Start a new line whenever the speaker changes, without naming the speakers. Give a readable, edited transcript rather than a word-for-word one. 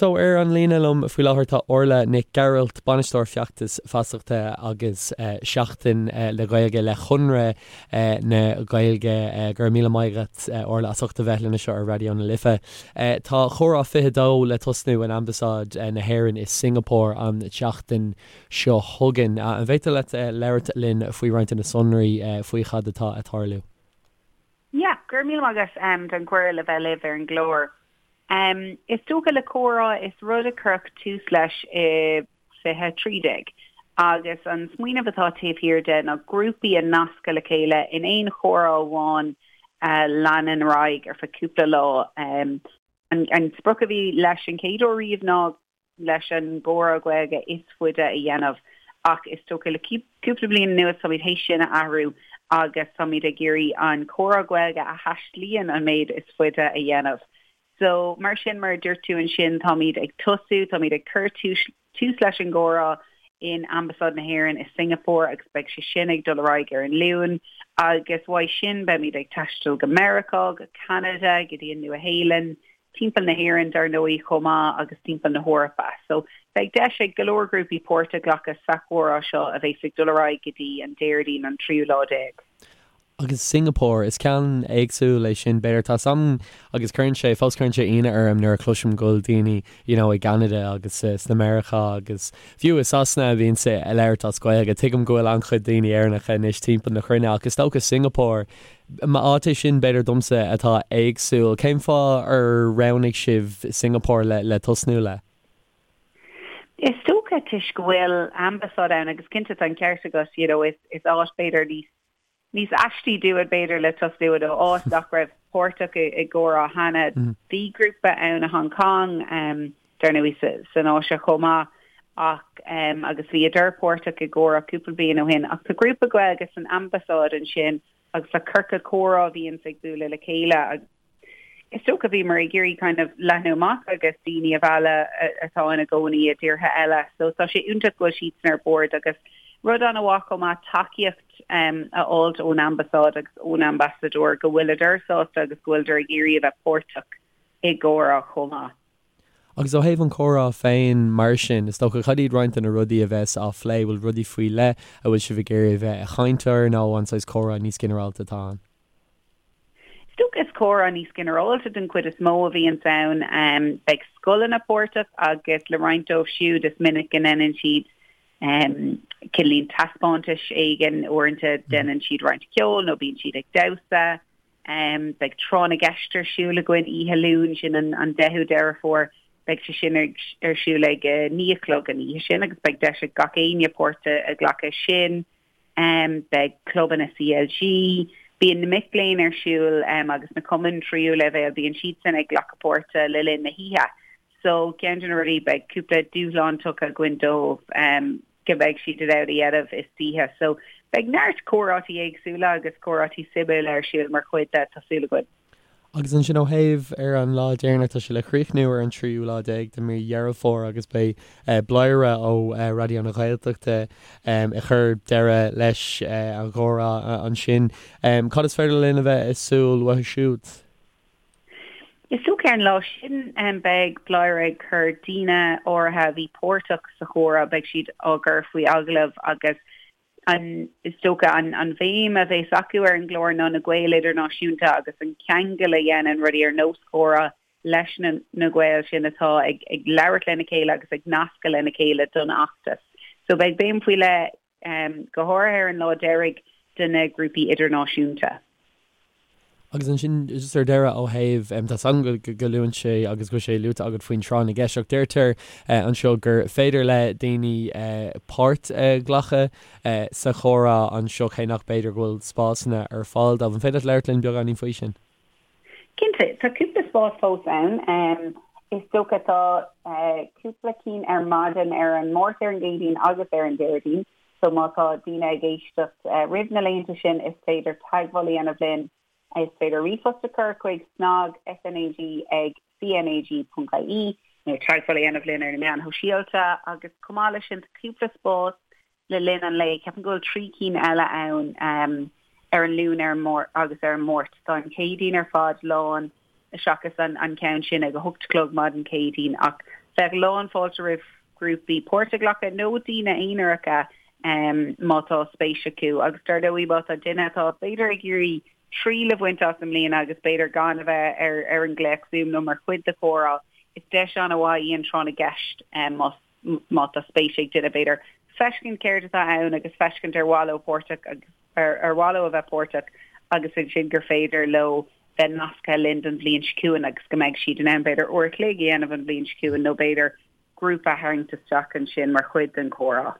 So, ar an líne liom faoi láthair tá Orla Nic Gearailt, Bainisteoir Feachtas Feasachta agus Seachtain na Gaeilge le Conradh na Gaeilge. Go raibh míle maith agat, Orla, as ucht a bheith linn anseo ar Raidió na Life. Tá Comhrá 22 le tosnú in Ambasáid na hÉireann i Singapore an tseachtain seo chugainn. An bhféadfá leat labhairt linn faoi roinnt de na sonraí faoi chad atá ag tarlú?
Yeah, go raibh míle maith agat don chuireadh le bheith libh ar an gclár. Is dócha le comhrá, is rud a cuireadh tús leis i 2013 agus an smaoineamh atá taobh thiar de ná grúpaí a nascadh le chéile in aon chomhrá amháin a leanann ar aghaidh ar feadh cúpla lá. An sprioc a bhí leis an chéad uair riamh ná leis an gcomhrá Gaeilge is faide a dhéanamh ach is dócha le cúpla bliain anuas táimid théis sin a athrú agus táimid ag iarraidh an comhrá Gaeilge a thaistlíonn an méid is faide a dhéanamh. So mar sin mar a dúirt tú ansin táimid ag tosú, táimid ag cur tús leis an gcomhrá in Ambasáid na hÉireann i Singapore agus beidh sé sin ag dul ar aghaidh ar an Luan agus uaidh sin beimid ag taisteal go Meiriceá, go Ceanada, go dtí an Nua-Shéalainn, timpeall na hÉireann dar ndóigh chomh maith agus timpeall na hEorpa. So beidh deis ag go leor grúpaí páirt a ghlacadh sa chomhrá seo a bheas ag dul ar aghaidh go dtí an Déardaoin an tríú lá déag.
Agus Singapore, is ceann éagsúil é sin b'fhéidir. Tá 's a'm agus cuireann sé, fós cuireann sé ionadh orm nuair a chloisim go bhfuil daoine you know i gCeanada agus sna Meiriceá agus fiú i Sasana a bhíonns ag labhairt as Gaeilge. Tuigim go bhfuil an-chuid daoine Éireannacha anois timpeall na cruinne ach is dócha Singapore, Áit é sin, b'fhéidir domsa, atá éagsúil. Cén fáth ar roghnaigh sibh Singapore le tosnú le?
Is dócha toisc go bhfuil ambasáid ann agus cinnte tá an ceart agat, you know, is áit b'fhéidir níos níos aistí dúinn b'fhéidir le tosnú nó áit nach raibh páirteach i gcomhrá cheana. Bhí grúpa ann i Hong Kong, dar ndóigh san Áise chomh maith ach agus bhíodar páirteach i gcomhrá cúpla bliain ó shin ach tá grúpa Gaeilge san ambasáid ansin agus tá ciorcal comhrá a bhíonns ag bualadh le chéile agus is dócha bhíomar ag iarraidh kind of leathnú amach agus daoine a mhealladh atá ina gcónaí i dtíortha eile so tá sé iontach go bhfuil siadsan ar bord agus rud an-mhaith chomh maith tacaíocht a fháilt ón ambasáid agus ón ambasadóir go bhfuileadar sásta agus go bhfuileadar ag iarraidh a bheith páirteach i gcomhrá chomh maith.
Agus ó thaobh an chomhrá féin mar sin, is dócha, cad iad roinnt de na rudaí a bheas á phlé? Bhfuil rudaí faoi leith a bhfuil sibh ag iarraidh a bheith ag caint air nó an saghas comhrá níos ginearálta atá ann?
Is dócha is comhrá níos ginearálta den chuid is mó a bhíonns ann. Beidh scoileanna páirteach agus le roinnt dóibh siúd is minic go ndéanann siad cineáilín taispeántais éigin, uaireanta déanann siad roinnt ceoil nó bíonn siad ag damhsa. Beidh Tráth na gCeist ar siúl againn oíche Luain, sin an 10ú Deireadh Fómhair. Beidh sé sin ar siúl ag 9 a chlog an oíche sin agus beidh deis ag gach éinne páirt a ghlacadh sin. Beidh clubanna CLG, bíonn na mic léinn ar siúl agus na cumainn tríú leibhéal, bíonn siadsan ag glacadh páirte le linn na hoíche. So ceann de na rudaí, beidh cúpla dúshlán tugtha againn dóibh. go mbeidh siad in ann a dhéanamh istoíche. So beidh neart comhráití éagsúla agus comhráití suimiúla ar siúl mar chuid de, tá súil againn.
Agus ansin ó thaobh ar an lá deireanach, tá sé le críochnú ar an tríú lá déag de mí Dheireadh Fómhair agus beidh Bladhaire ó Raidió na Gaeltachta ag cur deireadh leis an gcomhrá ansin. Cad is féidir linn a bheith ag súil uathu siúd?
Is dócha ar an lá sin beidh Bladhaire ag cur daoine áirithe a bhí páirteach sa chomhrá, beidh siad á gcur faoi agallamh agus an is dócha an an bhéim a bheas acu ar an gclár ná na Gaeil idirnáisiúnta agus an ceangal a dhéanann rudaí ar nós comhrá leis na na Gaeil sin atá ag ag labhairt lena chéile agus ag nascadh lena chéile don fheachtas. So beidh béim faoi leith go háirithe ar an lá deiridh de na grúpaí idirnáisiúnta.
Agus ansin, just ar deireadh, ó thaobh, tá 's agam go luann sé agus go bhfuil sé luaite agat faoin tráth na gceist, ach deirtear anseo gur féidir le daoine páirt a ghlacadh sa chomhrá anseo cé nach b'fhéidir go bhfuil spásanna ar fáil dóibh. An féidir leat labhairt linn beagáinín faoi sin?
Cinnte, tá cúpla spás fós ann. Is dócha tá cúpla cinn ar maidin ar an Máirt, ar an gCéadaoin agus ar an Déardaoin. So má tá daoine ag éisteacht roimh na laethanta sin is féidir teagmháil a dhéanamh linn. Is féidir ríomhphost a chur chuig snag, SNAG, ag cnag.ie nó teagmháil a dhéanamh linn ar na meáin shóisialta agus chomh maith leis sin tá cúpla spás le linn an lae. Ceapaim go bhfuil 3 cinn eile ann ar an Luan ar an agus ar an Máirt. Tá an Chéadaoin ar fad lán seachas an ceann sin ag a hocht a chlog maidin Céadaoin ach. Bheadh lán fáilte roimh ghrúpaí páirt a ghlacadh nó daoine aonaracha má tá spéis acu agus dar ndóigh má tá duine atá b'fhéidir ag iarraidh triail a bhaint as i mbliana agus b'fhéidir gan a bheith ar ar an nglaoch Zoom nó mar chuid de chomhrá, is deis an-mhaith í an tráth na gceist más má tá spéis ag duine b'fhéidir feiscint céard atá ann agus feiscint ar mhaith leo páirteach agus ar ar mhaith leo a bheith páirteach agus ansin gur féidir leo bheith nasctha linn don bhliain seo chugainn agus go mbeidh siad in ann b'fhéidir uair a chloig a dhéanamh an bhliain seo chugainn nó b'fhéidir grúpa a tharraingt isteach ansin mar chuid den chomhrá.